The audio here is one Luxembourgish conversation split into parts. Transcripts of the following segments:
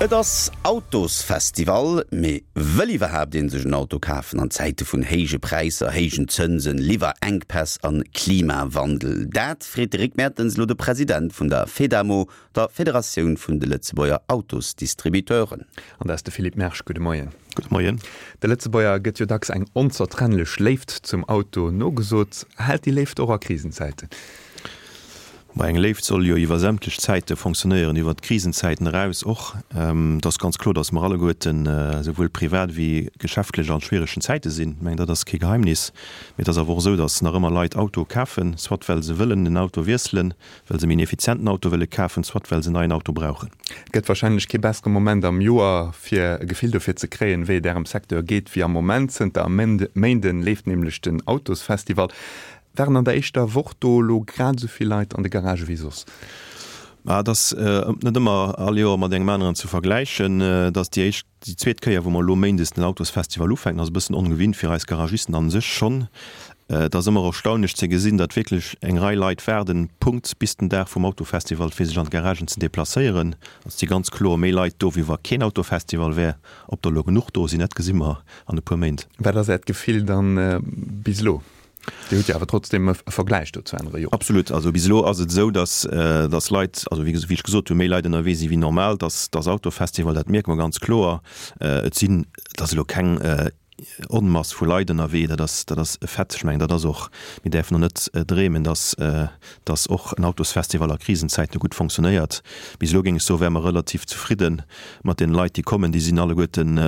Et ass Autosfestival, mee wëll iwwerhaapt een sech en Auto kafen an Zäite vun héije Präisser, héijen Zënsen, Liwwerenkpäss an Klimawandel? Dat freet de Rick Mertens elo de President vun der Fedamo, der Federatioun vun de Lëtzebuerger Autosdistributeuren. An dat ass de Philippe Mersch. Gudde Moien. Gudde Moien. De Lëtzebuerger gëtt jo dacks eng onzertrennlech Léift zum Auto nogesot. Hält déi Léift och a Krisenzäiten? Ma eng Léift soll jo iwwer sämtlech Zäite fonctionnéieren, iwwer d'Krisenzäiten eraus och. Et ass ganz kloer, datt mer alleguerten, esouwuel privat wéi geschäftlech, an schwieregen Zäite sinn. Ech mengen, dat ass kee Geheimnis. Mee et ass awer och esou, datt nach ëmmer Leit Autoe kafen, soit well se wëllen en Auto wiesselen, well se méi en effizienten Auto wëlle kafen, soit well se en neien Auto brauchen. Et gëtt wahrscheinlech kee bessere Moment am Joer, fir e Gefill dofir ze kréien, wéi et Ärem Secteur geet, wéi am Moment. Zënter e Méinden leeft nämlech den Autosfestival. Waren an der éischter Woch do elo grad esou vill Leit an de Garagë wéi soss? Ma et ass net ëmmer all Joer mat engem aneren ze vergläichen. Et ass déi éischt, déi zweet Kéier, wou mer elo méindes den Autosfestival ufänken. Ass e bëssen ongewinnt fir eis Garagisten a sech schonn. Et ass ëmmer erstaunlech ze gesinn, datt wierklech eng Rei Leit waarden, Punkt bis den Dag vum Autofestival, fir sech an d'Garagen ze deplacéieren. Et si ganz kloer méi Leit do, wéi wa keen Autofestival wär. Ob der elo genuch do sinn, dat gesi mer an e puer Méint. Wat ass Äert Gefill dann bis elo? Dir hutt jo awer trotzdem e Vergläich do zu anere Joren. Absolut. Also bis elo ass et esou, datt datt Leit, also wéi ech gesot hunn, méi Leit ënnerwee si wéi normal. Datt datt Autofestival, dat mierke mer ganz kloer. Et sinn, et ass elo keng Onmass vu Leit ënnerwee, dat ass dat ass e Fait. Ech mengen, dat ass och, mir däerfen och net dreemen, datt datt och en Autosfestival a Krisenzäite gutt fonctionnéiert. Bis elo géing ech soen, wäre mer relativ zefridde mat deene Leit, déi kommen. Déi sinn alleguerten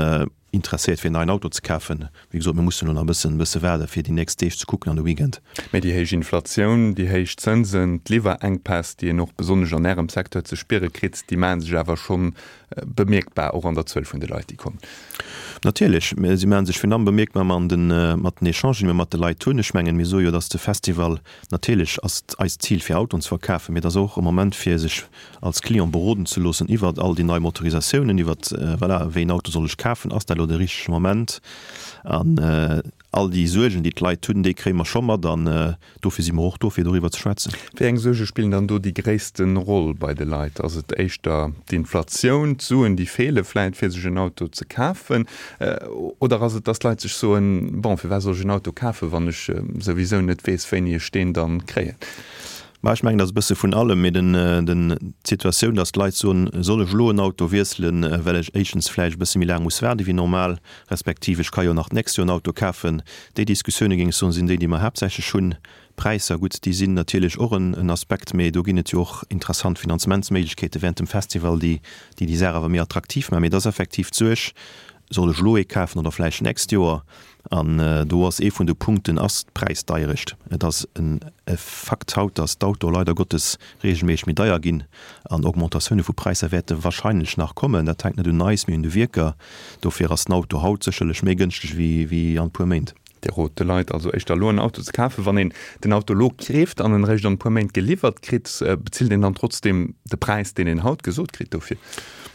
interesséiert fir en neien Auto ze kafen. Wéi gesot, mir mussen elo nach e bëssen, bësse waarde fir déi nächst Deeg ze kucken an de Weekend. Mee déi héich Inflatioun, déi héich Zënsen, d'Liwwerenkpäss, déi een och besonnesch an Ärem Secteur ze spiere kritt, déi maache sech awer schonn bemierkbar, och an der Zuel vun de Leit, déi kommen. Natierlech, si maache sech virun allem bemierkbar an den, mat den Echangen, déi mir mat de Leit hunn. Ech mengen, mir soe jo, dass de Festival, natierlech ass eist Zil fir Autoen ze verkafen, mee et ass och e Moment fir sech als Client beroden ze loossen iwwert all déi nei Motorisatiounen, iwwert, voilà, wéi een Auto soll ech kafen, ass dat elo de richtege Moment? An all déi Suergen, déi d'Leit hunn, déi kréie mer scho mat an dofir si mer och do, fir doriwwer ze schwätzen. Wéi eng Suerge spillen dann do déi gréisste Roll bei de Leit? Ass et éischter d'Inflatioun, d'Suen, déi feele vläit, fir sech en Auto ze kafen? Oder ass et, datt d'Leit sech soen, bon, firwat soll ech en Auto kafen, wann ech souwisou net weess, wéini ech deen dann kréien? Ma ech mengen, et ass e bësse vun allem, mee den, den, d'Situatioun, datt d'Leit soen, soll ech elo en Auto wiesselen, well ech éischtens vläicht e bësse méi laang muss waarde wéi normal, respektiv ech ka jo nach d'nächst Joer en Auto kafen. Déi Diskussioune géing ech soen, sinn déi, déi mer haaptsächlech hunn. D'Präisser, gutt, déi sinn natierlech och en, en Aspekt, mee do ginn et jo och interessant Finanzementsméiglechkeete während dem Festival, déi, déi déi Saach awer méi attraktiv maachen. Mee et ass effektiv d'Suerg, soll ech elo ee kafen oder vläicht d'nächst Joer? An do ass ee vun de Punkten ass d'Präisdeierecht. Et ass e Fakt haut, datt d'Autoe leider Gottes reegelméisseg méi deier ginn an Augmentatioune vu Präisser wäerte wahrscheinlech nach kommen. Dat hänkt net un eis, mee un de Wierker. Dofir ass den Auto haut sécherlech méi gënschteg wéi an e puer Méint. Dir rot de Leit also éischter elo en Auto ze kafen. Wann een den Auto elo keeft an en eréischt an e puer Méint geliwwert kritt, bezilt een dann trotzdeem de Präis, deen een haut gesot kritt dofir?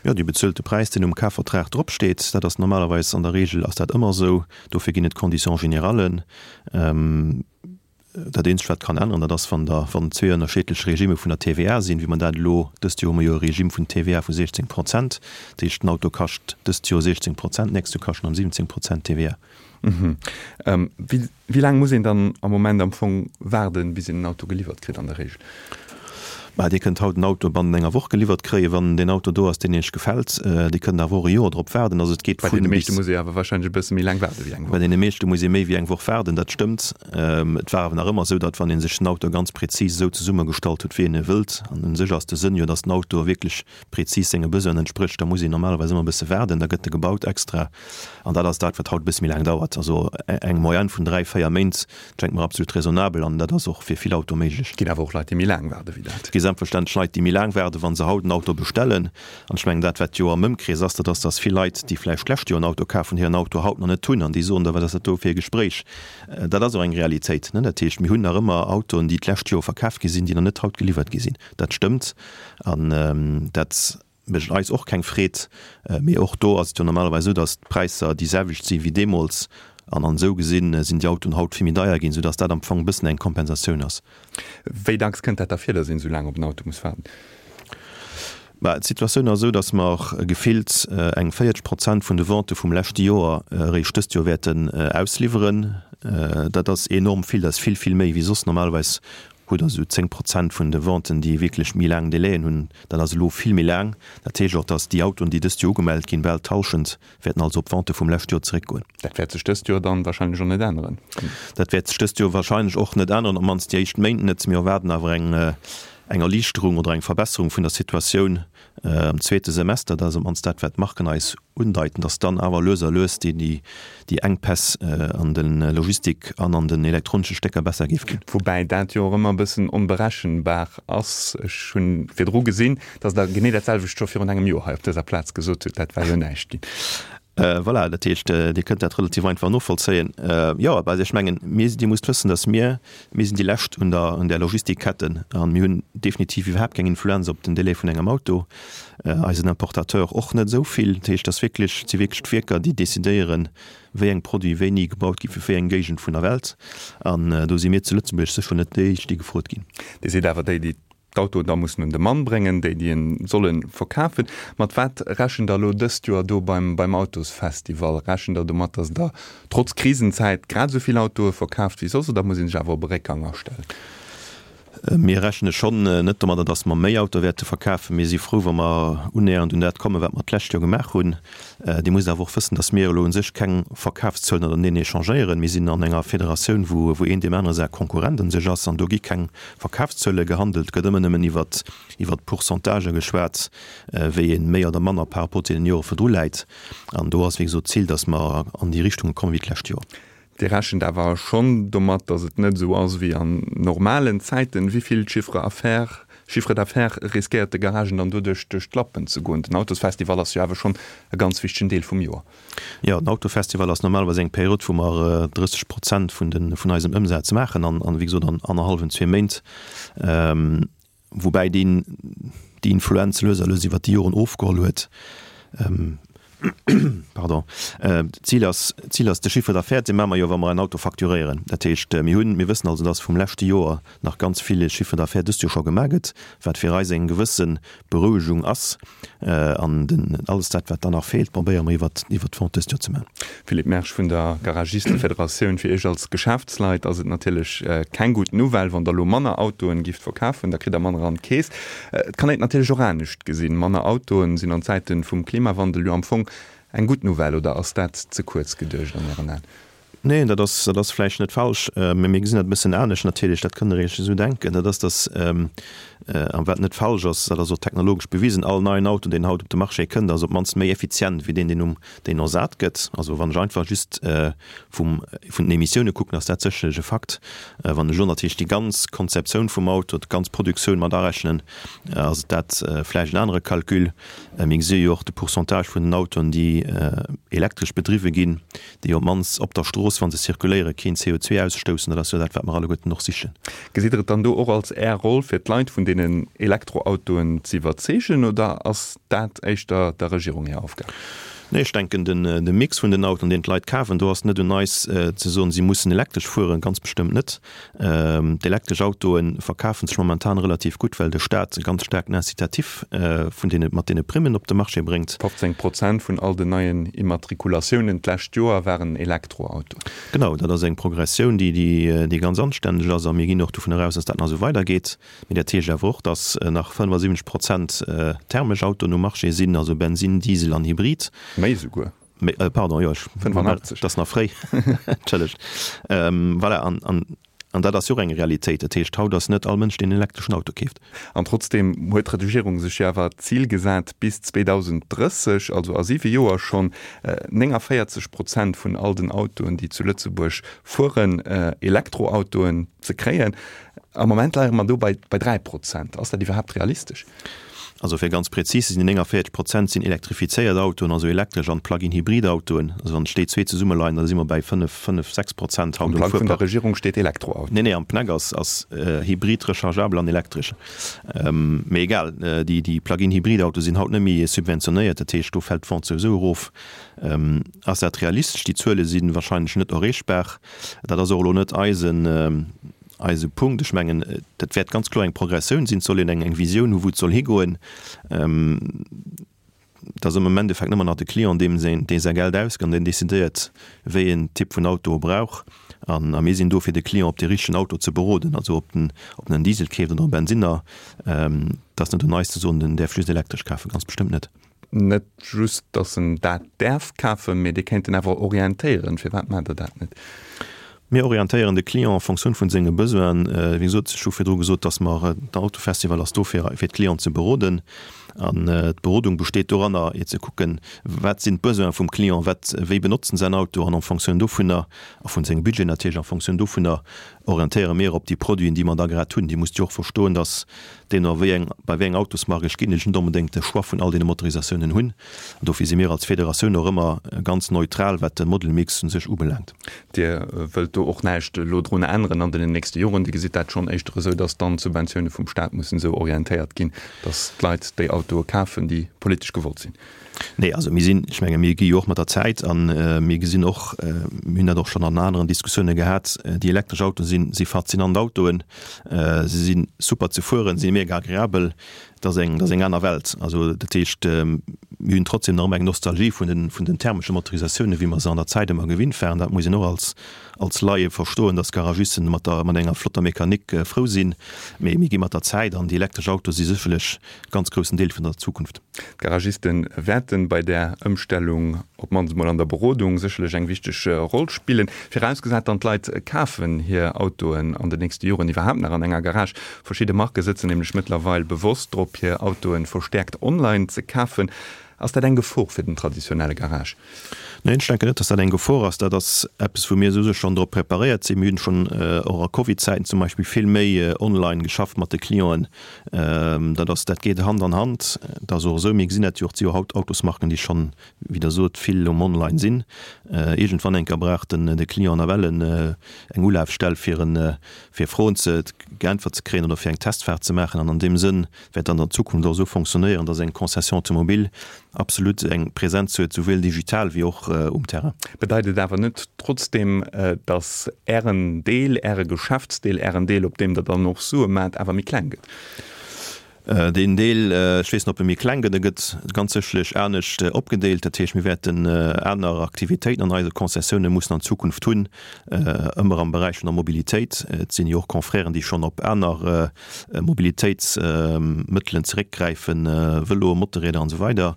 Jo, Dir bezuelt de Präis, deen um Kafvertrag drop steet. Dat ass normalerweis, an der Regel ass dat ëmmer esou. Dofir ginn et Conditions générales. Dat eenzegt, wat kann änneren, dat ass, wann der, wann zwee ënnerscheedlech Regime vun der TVA sinn, wéi mer dat elo, dëst Joer hu mer jo e Regime vun TVA vu 16 Prozent. Dat heescht, den Auto kascht dëst Joer 16 Prozent, d'nächst Joer kascht en erëm 17 Prozent TVA. Wéi laang muss een dann am Moment am Fong waarden, bis een en Auto geliwwert kritt an der Regel? Bah, Dir kënnt haut en Auto bannent enger Woch geliwwert kréien, wann deen Auto do ass, deen Iech gefält. Dir kënnt awer och e Joer drop waarden. Also et geet Bei vun deene bis. meeschte muss ee awer warscheinlech e bësse méi laang waarde wéi eng Bei Woch. deene meeschte muss ee méi wéi eng Woch waarden, dat stëmmt. Et war awer nach ëmmer esou, datt wann ee sech den Auto ganz prezis esou zesummegestallt huet, wéi een e wëllt, an u sech ass de Sënn jo, datt den Auto wierklech prezis senge Besoinen entsprécht, da muss een normalerweis ëmmer e bësse waarden, da gëtt e gebaut extra. An dat ass dat, wat haut e bësse méi laang dauert. Also eng Moyenne vun 3, 4 Méint schengt mer absolut raisonnabel an dat ass och fir vill Autoe méiglech. Et ginn awer och Leit, déi méi laang waarde wéi dat. Et gi selbstverständlech Leit, déi méi laang waarden, wa se haut en Auto bestellen. An ech mengen, dat, wat jo am Ëmkrees ass, dat ass, dass vill Leit, déi vläicht d'lescht Joer en Auto kaf hunn, hiren Auto haut nach net hunn an déi soen da, wat ass dat do fir e Gespréich? Dat ass och eng Realitéit. Dat heescht, mir hunn nach ëmmer Autoen, déi d'lescht Joer verkaf gi sinn, déi nach net haut geliwwert gi sinn. Dat stëmmt an dat mécht eis och keng Freed. Mee och do ass et jo normalerweis esou, datt d'Präisser déi selwecht si wéi deemools. An an esou gesinn sinn déi Autoen haut vill méi deier ginn, soudatt dat am Fong e bëssen eng Kompensatioun ass. Wéi dacks kënnt dat da vir, datt een esou laang op en Auto muss waarden? Bah, d'Situatioun ass esou, datt mer gefillt eng 40 Prozent vun de Vente vum leschte Joer eréischt dëst Joer wäerten ausliwweren. Dat ass enorm vill, dat ass vill, vill méi wéi soss. Normalerweis hutt Der esou 10 Prozent vun de Venten, déi wierklech méi laang Delaien hunn. Dat ass elo vill méi laang. Dat heescht och, datt déi Autoen, déi dëst Joer ugemellt ginn, bal d'Hallschent wäerten also op d'Vente vum leschte Joer zeréckgoen. Dat wäert sech dëst Joer dann wahrscheinlech och net änneren. Dat wäert sech dëst Joer wahrscheinlech och net änneren, op d'mannst déi éischt Méint net. Mir erwaarden awer eng eng Erliichterung oder eng Verbesserung vun der Situatioun am zweete Semester. Dat ass op d'mannst dat, wat d'Marken eis undeiten, dass dann awer lues a lues déi Enkpäss an de Logistik an an den elektronesche Stécker besser géif ginn. Woubäi dat jo och ëmmer e bëssen onberechenbar ass. Ech hu virdru gesinn, dass Der genee dat selwecht scho virun engem Joer hei op dëser Plaz gesot hutt. Dat war jo näischt ginn. Voilà, dat heescht, Dir kënnt dat relativ einfach novollzéien. Jo, also ech mengen, mir, Dir musst wëssen, dass mir, mir sinn déi Lescht un der, un där Logistikketten a mir hunn definitiv iwwerhaapt keng Influenz op den Délai vun engem Auto, eisen Importateur och net esou vill. Dat heescht, dass wierklech, et si wierklech d'Wierker, déi decidéieren, wéi eng Produit wéini gebaut gi fir wéi eng Géigend vun der Welt. An do si mir zu Lëtzebuerg sécher net déi Éischt, déi gefrot ginn. Dir sidd awer déi, déi d'Autoen da mussen un de Mann bréngen, déi déi en solle verkafen. Mat wat rechent der elo dëst Joer do beim beim Autosfestival? Rechent der domat, datt der trotz Krisenzäit grad esou vill Autoe verkaaft wéi soss oder muss ee sech awer op e Réckgang astellen? Mir rechne schonn net domadder, datt mer méi Autoe wäerte verkafen. Mir si frou, wa mer unnähernd un dat kommen, wat mer d'lescht Joer gemaach hunn. Dir musst awer och wëssen, datt mir elo u sech keng Verkafszuelen ënnerteneen échangéieren. Mir sinn an enger Federatioun, wou wou een deem anere säi Konkurrent un sech ass an do gi keng Verkafszuele gehandelt, gëtt ëmmer nëmmen iwwert iwwert Pourcentagë geschwat, wéi ee méi oder manner par rapport zu deenen Jore virdru läit. An do ass wéi gesot d'Zil, datt mer an déi Richtung kommen wéi d'lescht Joer. Dir rechent awer schonn domat, datt et net esou ass wéi an normalen Zäiten. Wéi vill Chiffre affaires, Chiffre d'affaires riskéiert de Garagen dann doduerch duerch d'Lappen ze goen? Den Autosfestival ass jo awer schonn e ganz wichtegen Deel vum Joer. Jo, den Autofestival ass normalerweis eng Period, wou mer 30 Prozent vun de, vun eisem Ëmsaz maachen an, an wéi gesot an annerhallwen, zwee Méint, woubäi deen, déi Influenz lues a lues iwwert déi Joren ofgeholl huet. Pardon. D'Zil ass, d'Zil ass de Chiffre d'affaires, dee maache mer jo, wa mer en Auto facturéieren. Dat heescht, mir hunn, mir wëssen also, dass vum leschte Joer nach ganz vill Chiffre d'affaires dëst Joer scho gemaach gëtt, wat fir eis eng gewësse Berouegung ass. An den, alles dat, wat dann nach feelt, probéiere mer iwwert, iwwert d'Vente dëst Joer ze maachen. Philippe Mersch vun der Garagistefederatioun, Fir Iech als Geschäftsleit ass et natierlech keng gutt Nouvelle, wann Der elo manner Autoen gifft verkafen, da kritt Der manner an d'Keess. Et kann een et natierlech och anescht gesinn, Manner Autoen sinn an Zäiten vum Klimawandel jo am Fong eng gutt Nouvelle, oder ass dat ze kuerz geduecht an Ären Aen? Neen, dat ass, dat ass vläicht net falsch, mä mir gesinn dat e bëssen anescht natierlech. Dat kënnt Der Iech esou denken. Dat ass, datt, a wat net falsch ass, dat ass och technologesch bewisen, all neien Auto, deen haut op de Marché kënnt, ass op d'mannst méi effizient wéi deen, deen um, deen ersat gëtt. Also wann ech einfach just vum, vun den Emissioune kucken, ass dat sécherlech e Fakt. Wann ech elo natierlech déi ganz Konzeptioun vum Auto, d'ganz Produktioun mat arechnen, ass et dat vläicht en anere Calcul. Mir gesi jo och de Pourcentage vun den Autoen, déi elektresch bedriwwe ginn, déi op d'mannst op der Strooss, wa se zirkuléieren, keen CO2 ausstoussen. Dat ass jo dat, wat mer alleguerten och sichen. Gesitt Der et dann do och als Är Roll, fir d'Leit vun deenen Elektroautoen ze iwwerzeegen, oder ass dat éischter der Regierung hir Aufgab? Nee, ech denken, de Mix vun den Autoen, deen d'Leit kafen, do ass net un eis ze soen, si mussen elektresch fueren, ganz bestëmmt net. D'elektresch Autoe verkafe sech momentan relativ gutt, well de Staat e ganz staarken Incitatif vun deene, mat deene Primmen op de Marché bréngt. 15 Prozent vun all den neien Immatrikulatiounen d'lescht Joer waren Elektroautoen. Genau, dat ass eng Progressioun, déi, déi ganz anstänneg ass a mir ginn och dovun eraus, dass dat nach esou weidergeet. Mee dat heescht awer och, dass nach 75 Prozent thermesch Autoen um Marché sinn, also Bensin, Diesel an Hybrid. Méi esouguer. Méi, pardon, jo, ech, 85. Dat ass nach fréi, entschëllegt. Voilà, an, an, an dat ass jo och eng Realitéit. Dat heescht, haut ass net all Mënsch, deen en elektreschen Auto keeft. An trotzdeem huet d'Regierung sech jo awer d'Zil gesat, bis 2030, also a siwe Joer schonn, 49 Prozent vun all den Autoen, déi zu Lëtzebuerg fueren, Elektroautoen ze kréien. Am Moment leie mer do bei, bei 3 Prozent. Ass dat iwwerhaapt realistesch? Also fir ganz präzis ze sinn, déi 49 Prozent sinn elektrifizéiert Autoen, also elektresch an Plug-in-Hybrid-Autoen. Also wann ech déi zwee zesummeleien, da si mer bei 5, 5, 6 Prozent haut um Fuerpark. Am Plang vun der Regierung steet Elektroauto. Nee, nee, am PNEC ass, ass Hybrid, rechargeabel an elektresch. Mee egal, déi, déi Plug-in-Hybrid-Autoe sinn haut net méi subventionéiert, dat heescht, do fält d'Vente souwisou erof. Ass dat realistesch? Déi Zuele si wahrscheinlech net erreechbar. Dat ass och elo net eisen. eise Punkt. Ech mengen, dat wäert ganz kloer eng Progressioun sinn. Et soll een eng eng Visioun hu wou et soll higoen. Et ass am Endeffekt ëmmer nach de Client, deem säin, dee säi Geld ausgëtt an deen decidéiert, wéi een Typ vun Auto e brauch. An a mir sinn do, fir de Client op dee richtegen Auto ze beroden. Also ob en, ob en en Diesel keeft oder e Bensinner, et ass net un eis ze soen, den däerf just elektresch kafen, ganz bestëmmt net. Net just, datt en dat däerf kafen, mee Dir kéint en awer orientéieren. Firwat maacht Der dat net? Mir orientéieren de Client en Fonctioun vun senge Besoinen. Wéi gesot, ech hu virdru gesot, datt mer, den Autofestival ass do fir fir d'Clienten ze beroden. An d'Berodung besteet doranner, fir ze kucken, wat sinn d'Besoine vum Client, wat, wéi benotzt en säin Auto an en Fonctioun dovunner, a vun sengem Budget natierlech, en Fonctioun dovunner orientéiere mir op déi Produiten, déi mer da grad hunn. Dir musst jo och verstoen, datt deemno wéi eng, bei wéi eng Autosmark ech ginn, ech net onbedéngt de Choix vun all deene Motorisatiounen hunn. An dofir si mir als Federatioun och ëmmer ganz neutral, wat de Model-Mix u sech ubelaangt. Dir wëllt do och näischt elo drun änneren an den nächste Joren. Dir gesitt dat schonn éischter esou, datt dann d'Subventioune vum Staat mussen esou orientéiert ginn, datt d'Leit déi Autoe kafen, déi politesch gewollt sinn. Nee, also mir sinn, ech menge mir gi jo och mat der Zäit a mir gesinn och, mir hunn dat och schonn an aneren Diskussioune gehat, déi elektresch Autoe sinn, si faszinant Autoen, se si super ze fueren, si mega agreabel. Dat ass eng, dat ass eng aner Welt. Also dat heescht, mir hunn trotzdem nach ëmmer eng Nostalgie vun den, vun den thermesche Motorisatiounen, wéi mer se an der Zäit ëmmer gewinnt waren. Dat muss een och als, als Laie verstoen, dass Garagisten mat der, mat enger flotter Mechanik frou sinn. Mee mir gi mat der Zäit an déi elektresch Autoe si sécherlech e ganz groussen Deel vun der Zukunft. D'Garagiste wäerte bei där Ëmstellung, op d'mannst emol an der Berodung, sécherlech eng wichteg Roll spillen. Virausgesat dann, d'Leit kafen hir Autoen an den nächste Joren iwwerhaapt nach an enger Garage. Verschidde Marke sëtzen nämlech mëttlerweil bewosst drop, hir Autoe verstäerkt online ze kafen. Ass dat eng Gefor fir den traditionelle Garage? Neen, ech denken net, dass dat eng Gefor ass. Dat ass eppes, wou mir souwisou schonn drop preparéiert sinn. Mir hunn schonn och a Covid-Zäiten zum Beispill vill méi online geschafft mat de Clienten. Dat ass, dat geet Hand an Hand. Et ass och esou, mir gesinn dat jo och, et si jo haut Autosmarken, déi schonn, wéi Der sot, vill um Online sinn. Iergendwann eng Kéier brauch den de Client nawell eng Ulafstell, fir en, fir Froen ze geäntwert ze kréien oder fir eng Testfaart ze maachen. An an deem Sënn wäert dann an Zukunft och esou fonctionnéieren, dass eng Concession automobile absolut eng Präsenz huet, souwuel digital wéi och um Terrain. Bedeit et awer net trotzdeem, dass Ären Deel, Äre Geschäftsdeel, Ären Deel, op deem Der dann och Sue maacht, awer méi kleng gëtt? Deen Deel, ech weess net, ob e méi kleng gëtt, e gëtt ganz sécherlech anescht opgedeelt. Dat heescht, mir wäerten aner Aktivitéiten an eise Concessioune mussen an Zukunft hunn, ëmmer am Beräich vun der Mobilitéit. Et sinn jo och Confrèren, déi schonn op aner Mobilitéitsmëttelen zeréckgräifen, Vëloe, Motorrieder an esou weider.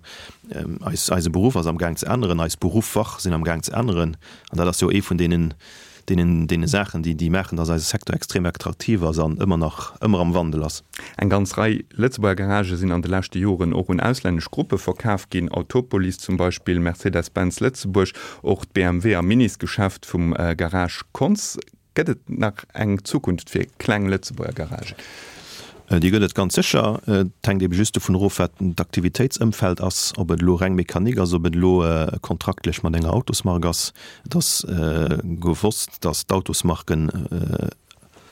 Eis, eise Beruff ass am Gaang ze änneren, eis Beruffer sinn am Gaang ze änneren. An dat ass jo ee vun deenen deenen, deene Saachen, déi, déi maachen, dass eise Secteur extrem attraktiv ass an ëmmer nach, ëmmer am Wandel ass. Eng ganz Rei Lëtzebuerger Garagë sinn an de leschte Joren och un auslännesch Gruppe verkaf ginn, Autopolis zum Beispill, Mercedes-Benz Lëtzebuerg, och d'BMW a Minisgeschäft vum Garage Konz. Gëtt et nach eng Zukunft fir kleng Lëtzebuerger Garagen? Déi gëtt et ganz sécher. Et hänkt ebe just dovun erof, wat d'Aktivitéitsëmfeld ass, ob et elo reng Mechanik ass, ob et elo kontraktlech mat enger Autosmark ass. Et ass gewosst, datt d'Autosmarken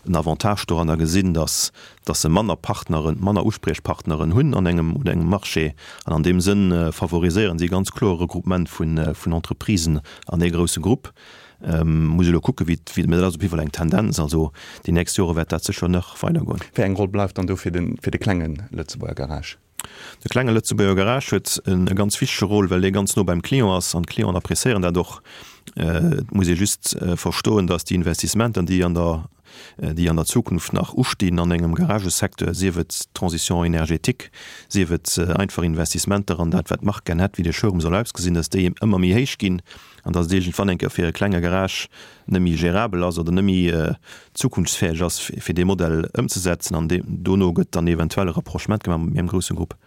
en Avantage doranner gesinn, datt datt se manner Partneren, manner Uspriechpartneren hunn an engem un engem Marché. An an deem Sënn favoriséieren si ganz kloer e Regroupement vun Entreprisen an ee grousse Grupp. Muss elo kucke wéi, mä dat ass op jidde Fall eng Tendenz. Also déi nächst Jore wäert dat sécher nach weidergoen. Wéi eng Roll bleift dann do fir de fir de klenge Lëtzebuerger Garage? De klenge Lëtzebuerger Garage huet e ganz wichtege Rôle, well dee ganz no beim Client ass an d'Clienten appréciéieren dat och. Et muss ee just verstoen, datt déi Investissementer, déi an der déi an der Zukunft nach ustinn an engem Garagesecteur, sief et d'Transition énergétique, sief et einfach Investissementer an dat, wat d'Mark gär hätt, wéi de Showroom soll ausgesinn, datt déi ëmmer méi héich ginn an datt et iergendwann eng Kéier fir e klenge Garage net méi gérabel ass oder net méi zukunftsfäeg ass, fir dee Modell ëmzesetzen. An dono gëtt dann eventuell e Rapprochement gemaach mat méi engem grousse Grupp.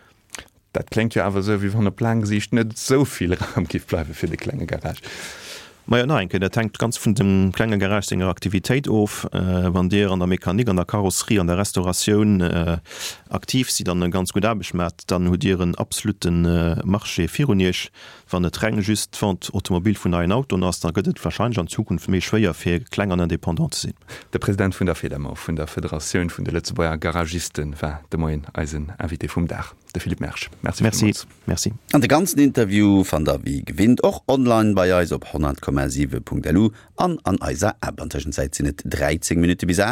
Dat kléngt jo awer esou, wéi wann op laang Siicht net esou vill Raum géif bleiwe fir de klenge Garage. Majo, nach eng Kéier, dat hänkt ganz vun dem klenge Garage senger Aktivitéit of. Wann Dir an der Mechanik, an der Karosserie, an der Restauratioun aktiv sidd an e ganz gutt Aarbecht maacht, dann hutt Dir en absolute Marché virun Iech. Wann et reng just d'Vente automobile vun neien Autoen ass, da gëtt et warscheinlech an Zukunft méi schwéier fir kleng an indépendant ze sinn. De President vun der Fedamo, vun der Federatioun vun de Lëtzebuerger Garagisten, war de Moien eisen Invité vum Dag, de Philippe Mersch. Merci villmools. Merci. An de ganzen Interview fannt der wéi gewinnt och online bei eis op 100,7.lu an an eiser App. An Tëschenzäit sinn et 13 Minutte bis 8.